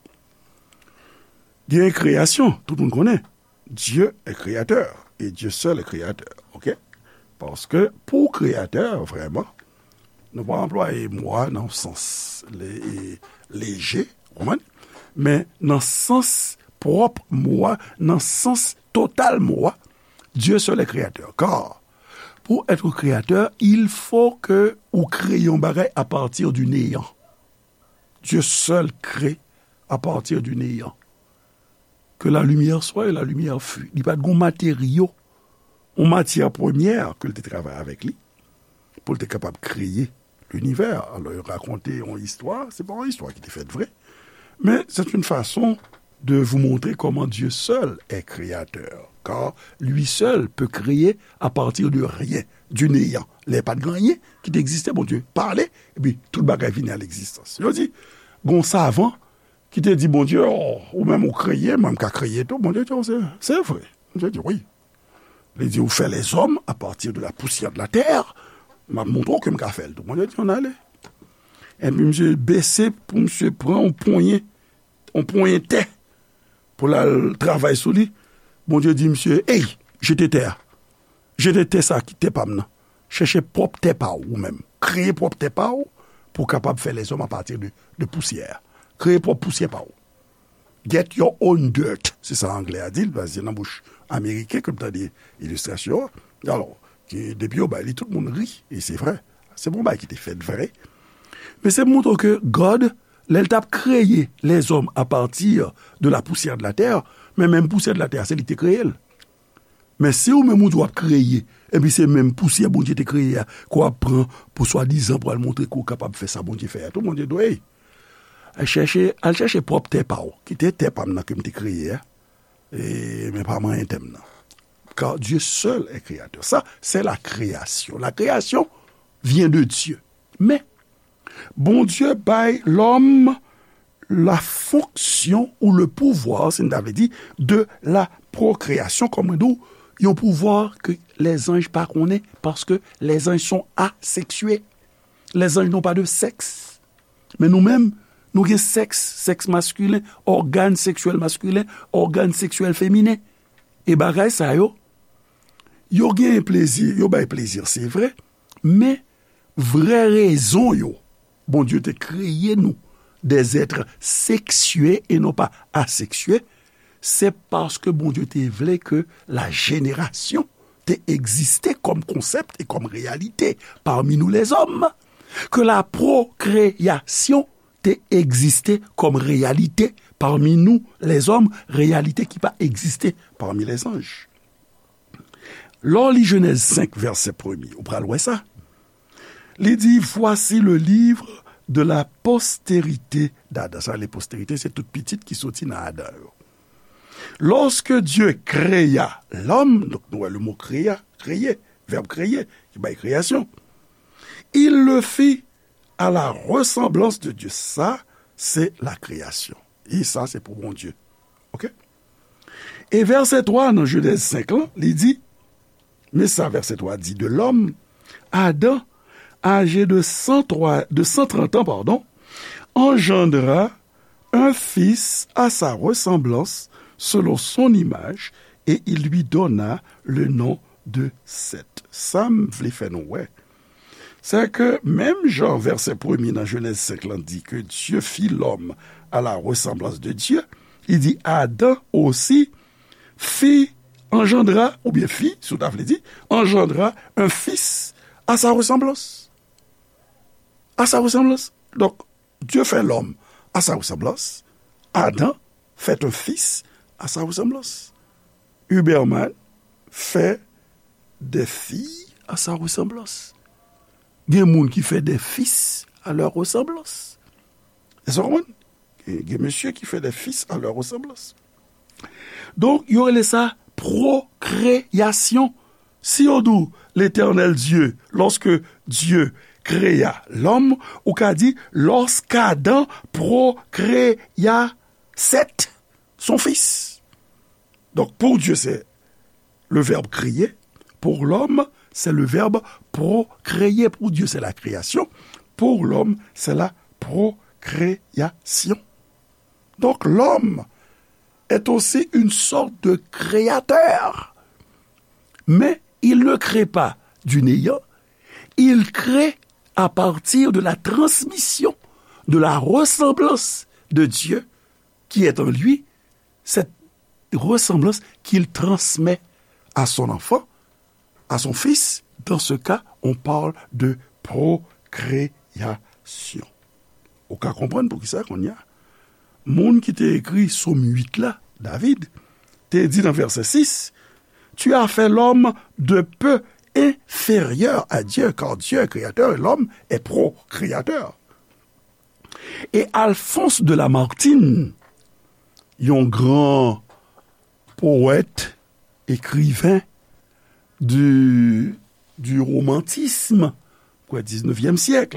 Gen kreyasyon, tout moun konnen. Dieu est créateur et Dieu seul est créateur, oke? Paske pou kreyatè, vrèman, nou pa anplwaye mo a nan sans le-, e, leje, ou konprann? Men nan sans pwòp mo a, nan sans total mo a, Dieu seul est créateur. Car, pour être créateur, il faut que ou kreye yon bagay à partir du néant. Dieu seul crée à partir du néant. Que la lumière soit et la lumière fut. Li pa t gon materyo, yon matyè premyè ke l te travay avèk li, pou l te kapab kreye linivè. Alò, yo rakonte yon istwa, se pa yon istwa ki te fèt vre, men c'est une façon de vous montrer comment Dieu seul est créateur, car lui seul peut créer à partir de rien, du néant. Lè pa t gen anyen ki te egziste, Bondye pale, epi tout bagay vini a legzistans. Yo di, gon savan ki te di Bondye, "Oh, ou menm ou kreye, mwen m ka kreye tou." Bondye di, "Oh, se, se vre." Bondye di, "Wi." Li di, "Ou fè lèzòm a pati de la pousyè de la tè, m ap montre w ke m ka fè l tou." Bondye di, "Ann ale." Epi misye bese pou misye pran yon ponyen, yon ponyen tè pou l al travay sou li. Bondye di misye, "Ey, jete tè a. Jete tè sa ki tè pa m nan. Chèche pwòp tè pa w ou menm. Kreye pwòp tè pa w pou w kapab fè lèzòm apati de, de pousyè a. Kreye pwòp pousyè pa w. Get your own dirt." Se sa anglè a di l, paske se nan bouch ameriken ke m tande ilistrasyon an. Alò, ki, depi yo bay li, tout moun ri, e se vre. Se bon bagay ki te fèt vre. Men se pou montre w ke God, lè l t ap kreye lèzòm apati de la poussière de la terre, men menm pousyè de la tè a, se li ki te kreye l. Men si ou menm ou di w ap kreye, epi se menm pousyè Bondye te kreye a, ke w ap pran pou swadizan pou al montre ke w kapab fè sa Bondye fè a tou, Bondye di w, "Ey, al chèche, al chèche pwòp tè pa w. Kite tè pa m nan ke m te kreye a, e, men pa manyen tè m nan." Car Dieu seul est créateur. Ça, c'est la création. La création vient de Dieu. Men, Bondye bay lòm la fonction ou le pouvoir, si n ta vle di, de la procréation, kòm mwen di w, yon pouvwa ke lèzanj pa konnen, paske lèzanj sont asexués. Les anges n'ont pas de sexe. Men nou menm, nou gen sèks, sèks maskilen, ògàn seksyèl maskilen, ògàn seksyèl feminen. E bagay sa yo, yo gen plezi, yo bay plezi, se vre, men vrè rezon yo, Bondye te kreye nou des êtres sexués et non pas asexués, se paske Bondye te vle ke la jenerasyon te egziste kòm konsèp e kòm reyalite pami nou lèzòm, ke la pwokreasyon te egziste kòm reyalite pami nou lèzòm, reyalite ki pa egziste pami lèzanj. Lè w li Jenèz senk, vèsè premye, ou pral wè sa. Li di, voici le livre de la postérité d'Adam. Sa vle posterite, se tout pitit ki soti nan Adan yo. Lorsque Dieu créa l'homme, donk nou wè le mot créa, kreye, vèb kreye, ki bay kreyasyon. Il le fit à la ressemblance de Dieu. Sa, se la kreyasyon. E sa, se pou Bondye. Ok? E vèsè twa nan Jenèz senk lan, li di, men sa vèsè twa di de lòm, Adam, âgé de cent trois, de cent trente ans, pardon, engendra un fils à sa ressemblance, selon son image, et il lui donna le nom de Seth. Sa m vle fè nou wè, se ke menm jan vèsè premye nan Jenèz senk lan di ke Dieu fit l'homme à la ressemblance de Dieu, li di Adam aussi fit, engendra, oubyen fit, si w ta vle di, engendra un fils à sa ressemblance. À sa ressemblance. Donk, Dieu fait l'homme à sa ressemblance. Adam fait un fils à sa ressemblance. Huberman fait des filles à sa ressemblance. Gen moun ki fè des fils à leur ressemblance. Èske w konprann? Gen, gen mesye ki fè des fils à leur ressemblance. Donk, yo rele sa pwokreasyon. Si yo di w, Letènèl Dye, lorsque Dieu créa l'homme, ou ka di, lorsqu'Adam procréa Seth, son fils. Donk, pour Dieu, c'est le verbe créer. Pour l'homme, c'est le verbe procréer. Pour Dieu, c'est la création. Pour l'homme, c'est la procréation. Donc, l'homme est aussi une sorte de créateur. Mais il ne crée pas du néant, il crée à partir de la transmission de la ressemblance de Dieu qui est en lui, cette ressemblance qu'il transmet à son enfant, à son fils. Dans ce cas, on parle de procréation. Ou ka konprann poukisa kounye a. Moun ki te ekri Sòm uit la, David, te di nan vèsè sis, Tu as fait l'homme de peu inférieur à Dieu, car Dieu est créateur et l'homme est procréateur. E Alphonse de Lamartine, yon gran powèt, ekriven du, du romantisme, kwè, diznevyèm syèk.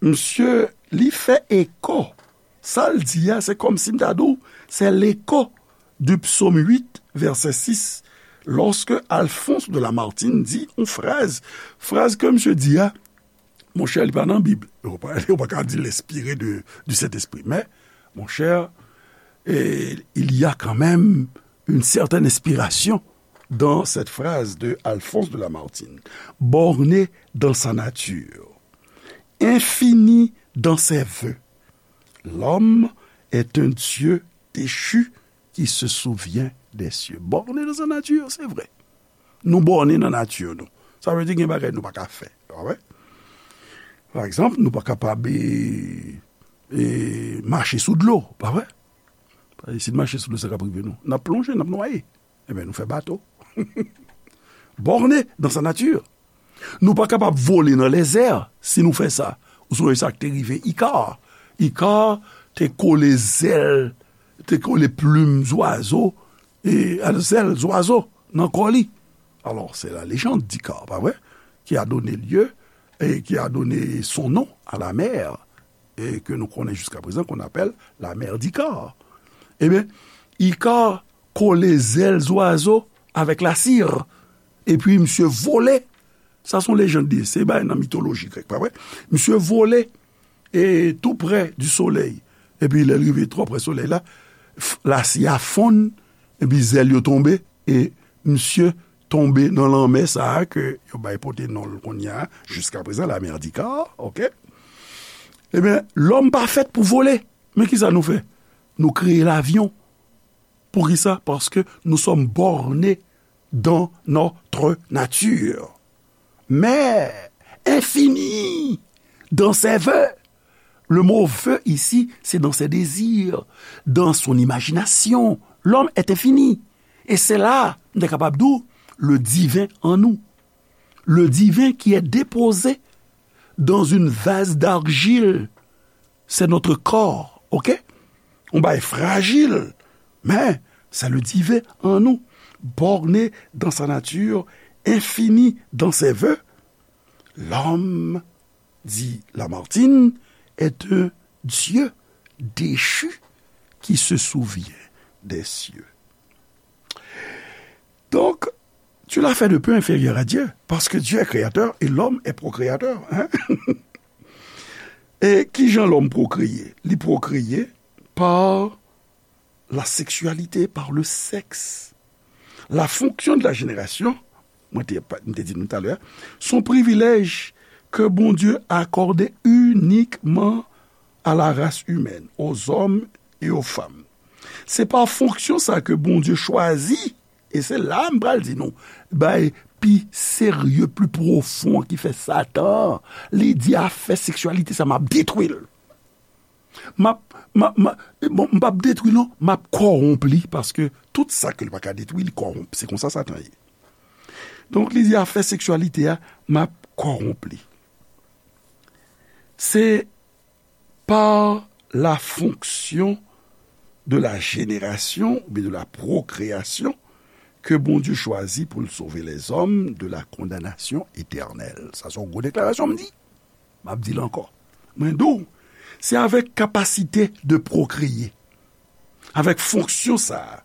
Misye, li fè eko. Sa l di a, se kòmsi m ta di w, c'est l'écho du psaume huit, verset six, lorsque Alphonse de Lamartine dit yon fraz, fraz ke misye di a, monchè, li pa nan Bib. Ou pa, ou pa ka di l enspire de, du Saint-Esprit. Men, monchè, eh, il y a quand même une certaine inspiration dans cette phrase de Alphonse de Lamartine. Borné dans sa nature, infini dans ses voeux, l'homme est un Dieu déchu qui se souvient des cieux. Borné dans sa nature, c'est vrai. Nou bòne nan nati nou. Sa vle di gen bagay nou pa ka fè. Pa vre? Pa egzanp, nou pa kapab, e, e, mache sou dlo. Pa vre? Paske si n mache sou dlo, sa k ap rive nou? N ap plonje, n ap nwaye. Ebyen, nou fè bato. Borné dans sa nature. Nou pa kapab vole nan lèzè. Si nou fè sa, ou sonje sa k te rive Ika. Ika te kole zèl, te kole plim zwazo, e, zèl zwazo nan kò li. Alors, c'est la légende d'Icare, pa vre, qui a donné lieu et qui a donné son nom à la mer, et que nous connaissons jusqu'à présent, qu'on appelle la mer d'Icare. Ebyen, Ika kole zèl zwazo avèk lasir, epi misye vole. Sa se yon lejand li ye, se bagay nan mitoloji grèk, pa vre? Misye vole, e, tou prè di solèy. Epi lè l rive twò prè solèy la, f-, lasi a fonn, epi zèl yo tonbe, e misye tonbe nan lanmè sa a ke yo bay pote non l kounye a, jiska prezan, la mer d'Icare, oke? Ebyen, lòm pa fèt pou vole. Men kisa nou fè? Nou kreye lavyon. Poukisa? Parce que nous sommes bornés dans notre nature. Mais infini dans ses voeux. Le mot voeux ici, c'est dans ses désirs, dans son imagination. L'homme est infini. Et c'est là, m te kapab di w, le divin en nous. Le divin qui est déposé dans une vase d'argile. C'est notre corps, oke? Yon bagay frajil, men c'est le divin en nous, borné dans sa nature, infini dans ses voeux. L'homme, dit Lamartine, est un Dieu déchu qui se souvient des cieux. Donc, tu l'as fait de peu inférieur à Dieu, parce que Dieu est créateur et l'homme est procréateur. Hein? E kijan lòm pwokreye? Li pwokreye par la sexualité, par le sexe. La fonction de la génération, mwen te, mwen te di nou talè, son privilèj ke Bondye akòde inikman à la race humaine, aux hommes et aux femmes. Se pa fonksyon sa ke Bondye chwazi, e se la m pral di nou, bay pi serye, pi pwofon ki fè Satan, li di afè seksyalite sa m ap detwi l. M ap, m ap, m ap, bon, m p ap detwi l non, m ap kòwonp li, paske tout sa ke l pa ka detwi, li kòwonp. Se konsa Satan ye. Donk, li di afè seksyalite a, m ap kòwonp li. Se par la fonction de la génération oubyen de la procréation que Bondye chwazi pou l sove lèzòm de la condamnation éternelle. Sa se yon gwo deklarasyon m di. M ap di l ankò. Mwen di w, se avèk kapasite de pwokreye, avèk fonksyon sa a,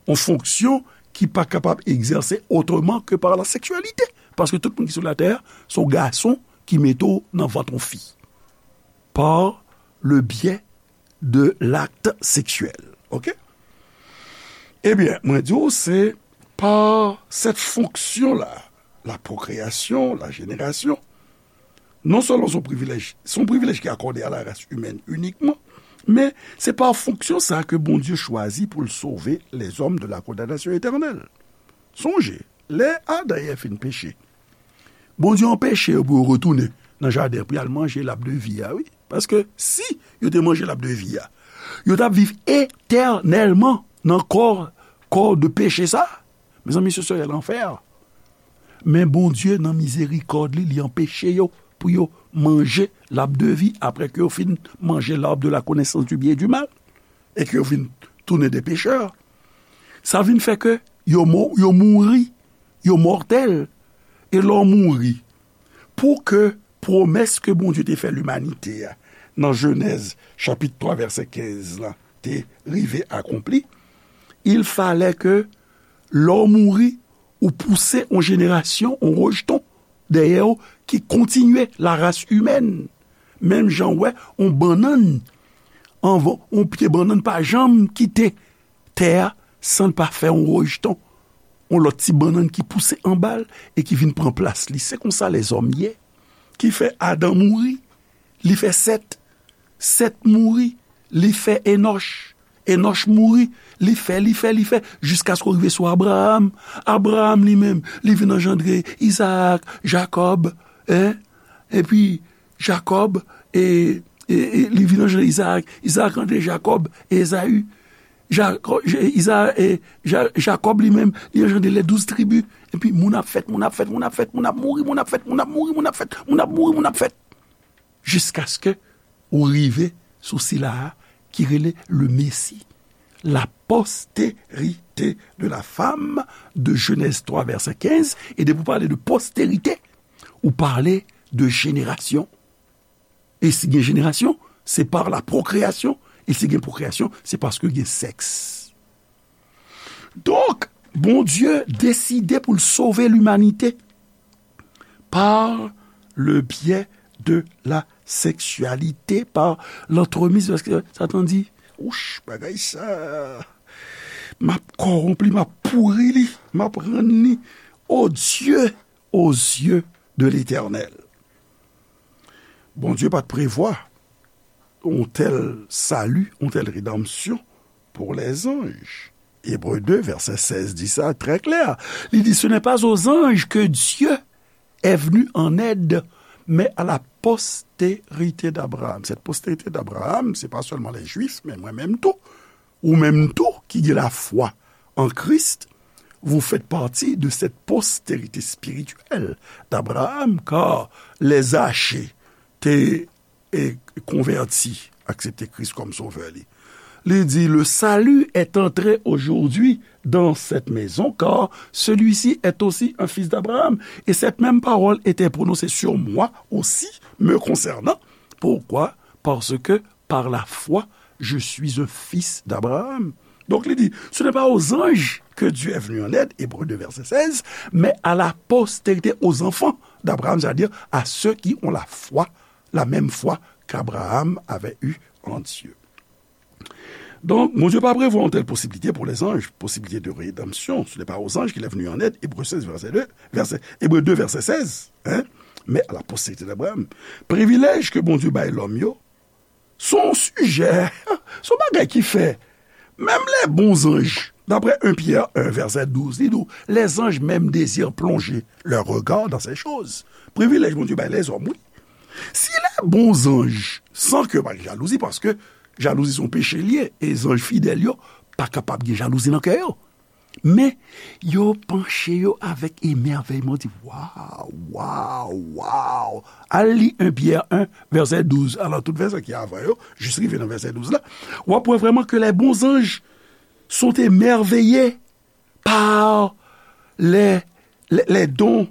yon fonksyon ki pa kapab egzèse otreman ke par la seksyalite. Paske tout moun ki sou latè a, se yon gason ki mete w nan vant yon fi. Par le biais de l'acte sexuel. Oke? Ebyen, mwen di w, se pa cette fonction-là, la procréation, la génération, non seulement son privilège, son privilège qui est accordé à la race humaine uniquement, men se pa fonksyon sa ke Bondye chwazi pou l sove lèzòm de la condamnation éternelle. Sonje, lè Adan e Èv fin peche, Bondye anpeche yo pou yo retounen nan jaden pou y al manje lab de vi a, wi. Paske si yo te manje lab de vi a, yo t ap viv etènèlman nan kò, kò de peche sa. Mezanmi, se serè lanfè. Men Bondye, nan mizerikòd li, li anpeche yo pou yo manje lab de vi apre ke yo fin manje l'arbre de la connaissance du bien et du mal e ke yo vin tounen de pechè. Sa vin fè ke yo mo-, yo mouri, yo mòtèl. E lè w mouri, pou ke pwomès ke Bondye te fè limanite a nan Jenèz chapit twa vèsè kenz la te rive akonpli, il fallait que lè w mouri, ou pouse yon jenerasyon, yon rejton dèyè w ki kontinye la race humaine. Menm jan w wè yon bannann, anvan, yon pye bannann pa janm kite tè a san l pa fè yon rejton, yon lòt ti bannann ki pouse anba l e ki vin pran plas li. Se konsa lèzòm ye. Ki fè Adan mouri, li fè Sèt. Sèt mouri, li fè Enòch. Enòch mouri, li fè, li fè, li fè, jiskaske w rive sou Abraram. Abraram li menm, li vin anjandre Izaak, Jakòb, en? Epi Jakòb, e, e, e li vin anjandre Izaak. Izaak anjandre Jakòb e Ezayi. Jakò-, Je-, Iza-, e, Ja-, Jakòb li menm, li anjandre les douze tribus. Epi moun ap fèt, moun ap fèt, moun ap fèt, moun ap mouri, moun ap fèt, moun ap mouri, moun ap fèt, moun ap mouri, moun ap fèt. Jiskaske ou rive sou sila a ki rele le Messie, la postérité de la femme de Genèse trois, verset quinze, e depi ou pale de postérité, ou pale de jenerasyon. E si gen jenerasyon, se par la procréation, e si gen pwokreyasyon, se paske gen sèks. Donk, Bondye deside pou l sove limanite par le biais de la sexualité, par l'entremise, paske Satan di, wouch, bagay sa, m ap kòwonp li, m ap pouri li, m ap rann li odieux aux yeux de l'Éternel. Bondye pa t prevwa yon tèl sali, yon tèl redanmsyon pou lèzanj. Ebre de, vèsè sèz di sa trè klè. Li di, ce n'est pas aux anges que Dieu est venu en aide, mais à la postérité d'Abraham. Cette postérité d'Abraham, se pa sèlman les Juifs, men mwen menm tou. Ou menm tou ki gen lafwa en Christ, vous faites partie de cette postérité spirituelle d'Abraham, car les Zachée te, e, konvèti, aksepte Kris kòm sovè li. Li di, le salut est entré aujourd'hui dans cette maison, car celui-ci est aussi un fils d'Abraham. Et cette même parole était prononcée sur moi aussi, me concernant. Pourquoi? Parce que par la foi, je suis un fils d'Abraham. Donc, il dit, ce n'est pas aux anges que Dieu est venu en aide, Hébreux deux, verset seize, mais à la postérité, aux enfants d'Abraham, c'est-à-dire à ceux qui ont la foi, la même foi qu'Abraham avait eue en Dieu. Donk, Bondye pa prevwa yon tèl posiblite pou lèzanj, posiblite de redanmsyon. Ce n'est pas aux anges qu'il est venu en aide, Hébreux seize, verset deux, verset, Hébreux deux, verset seize, hein? Mais à la postérité d'Abraham. Privilèj ke Bondye bay lòm yo, se yon sijè, se yon bagay ki fè, menm les bons anges, d'après un Pierre un, verset douze, li di w, les anges même désirent plonger leur regard dans ces choses. Privilèj Bondye bay lèzòm, wi. Si les bons anges, san ke pa gen jalouzi, paske jalouzi se yon peche l ye, e zanj fidèl yo pa kapab gen jalouzi nan kè yo. Men, yo panche yo avèk emèvèyman, di, waw, waw, waw. Al li un Pierre un, verset douze. Alò, tout vèsè ki avan yo, jis rive nan verset douze la, w ap wè vrèman que les bons anges sont émerveillés par les, les, les dons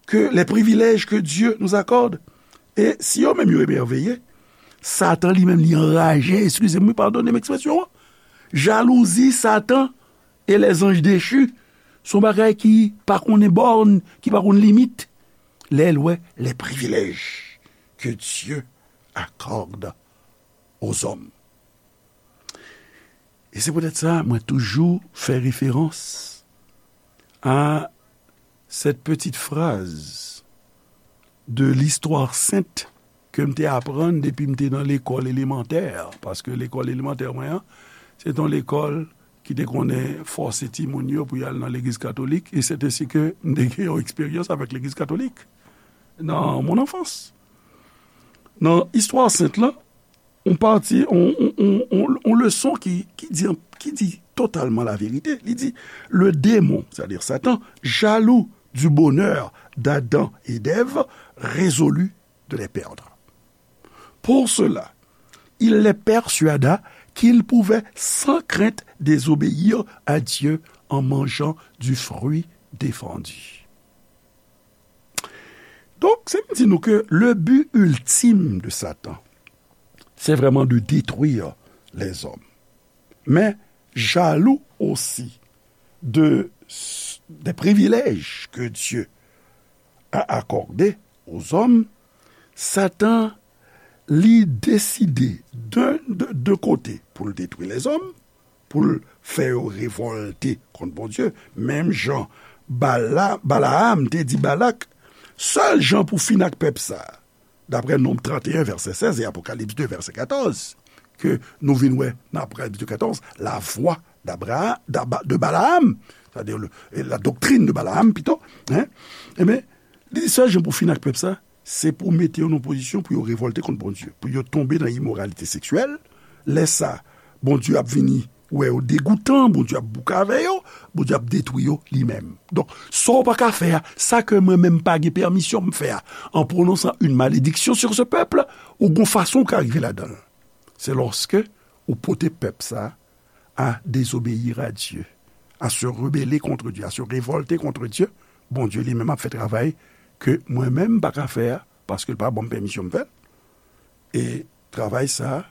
que les privilèges que Dieu nous accorde. E si yo menm yo emèveye, Satan li menm li anraje, eskize m, wi, padone m ekspresyon an. Jalouzi, Satan e les anges déchus, se yon bagay ki pa konnen bòn, ki pa konn limit. Lè l wè les privilèges que Dieu accorde aux hommes. E se poutèt sa, mwen toujou fè referans a cette petite phrase de l'histoire sainte ke m te aprann depi m te nan lekòl elemantè, paske lekòl elemantè mwen an, se te yon lekòl ki te konnen fòse timoun yo pou y al nan legliz katolik, e c'est ainsi que m te gen yon eksperyans avèk legliz katolik dans mon enfance. Nan istwa sent lan, on pati, on, on, on, on, on leson ki, ki di, ki di totalman laverite. Li di, le démon, c'est-à-dire Satan, jaloux du bonheur d'Adam et d'Ève, résolut de les perdre. Pour cela, il les persuada qu'ils pouvaient sans crainte désobéir à Dieu en mangeant du fruit défendu. Donk, se vin di nou ke le but ultime de Satan, c'est vraiment de détruire les hommes. Mais jaloux aussi de, des privilèges que Dieu a accordés aux hommes, Satan, li deside de, de, de kote pou l detwi lèzòm, pou l fè yo revòlte kont Bondye, menm jan Bala, Balaam te di Balak, sèl jan pou fin ak pèp sa, daprè Nonb trannteyen vèsè sèz e Apokalips de vèsè katòz, ke nou vin wè nan Apokalips de katòz, la voix d'Abraham, d'Aba-, de Balaam, c'est-à-dire le, la doctrine de Balaam pito, hein, ebyen, li di sèl jan pou fin ak pèp sa, se pou mete yo nan pozisyon pou yo revòlte kont Bondye, pou yo tonbe nan imoralite seksyèl. Lè sa, Bondye ap vini wè yo degoutan, Bondye ap bouke avè yo, Bondye ap detwi yo li menm. Donk, sa w pa ka fè a, sa ke mwen menm pa gen pèmisyon m fè a, en prononçant une malédiction sur ce peuple, ou gon fason w ka rive ladan l. Se lòske ou pote pèp sa a désobéir à Dieu, à se rebeller contre Dieu, à se révolter contre Dieu, Bondye li menm ap fè travay ke mwen menm m pa ka fè a, paske l pa ban m pèmisyon m fè l. E travay sa a,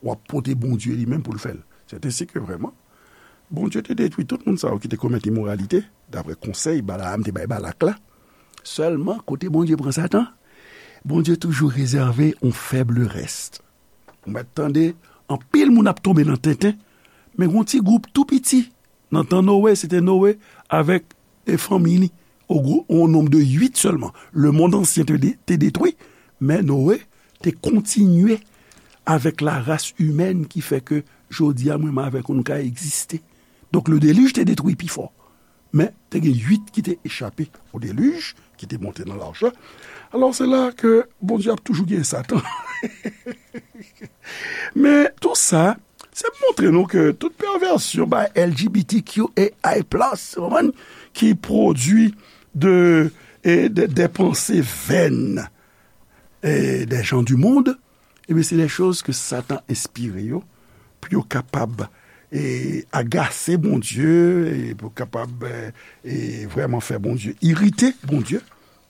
w ap pote Bondye li menm pou l fè l. C'est ainsi que vraiment, Bondye te detwi tout moun sa yo ki te komèt imoralite, daprè konsèy Balaam te bay Balak la. Sèlman, kote Bondye pran Satan, Bondye toujou rezève yon faible reste. Ou mèt tande, anpil moun ap tonbe nan tenten, men yon ti gwoup tou piti. Nan tan Noe, se te Noe avèk, e, fanmi li, o gwo, o nonb de uit sèlman. Le monde ancien te de-, te detwi, men Noe te kontinye avèk la race humaine ki fè ke jodi a, mwen menm avèk ou, nou ka egziste. Donk, le déluge te detwi pi fò. Men, te gen uit ki te echape o déluge, ki te monte nan lach la. Alò, se la ke Bondye ap toujou gen Satan. Men, tou sa, se montre nou ke tout pèvèsyon bay L G B T Q A I plus, ou konprann, ki pwodui de, e, de, des pensées vaines, e, des gens du monde, ebyen, se des choses que Satan enspire yo, pou yo kapab, e, agase Bondye, e pou kapab, e, e, vrèman fè Bondye, irite Bondye,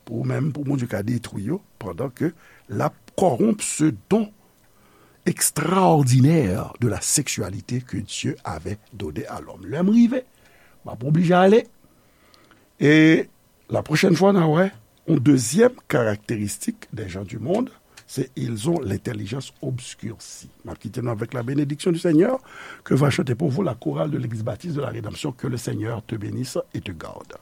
pou menm, pou Bondye ka detwi yo, pandan ke l ap corrompre ce don extraordinaire de la sexualité que Dieu avait donné à l'homme. Lè m rive, m ap oblije ale. E la prochaine fois, n a wè, yon dezyèm karakteristik des gens du monde, c'est ils ont l'intelligence obscurcie. M ap kite nou avec la bénédiction du Seigneur, que va chanter pour vous la chorale de l'Église baptiste de la Rédemption. Que le Seigneur te bénisse et te garde.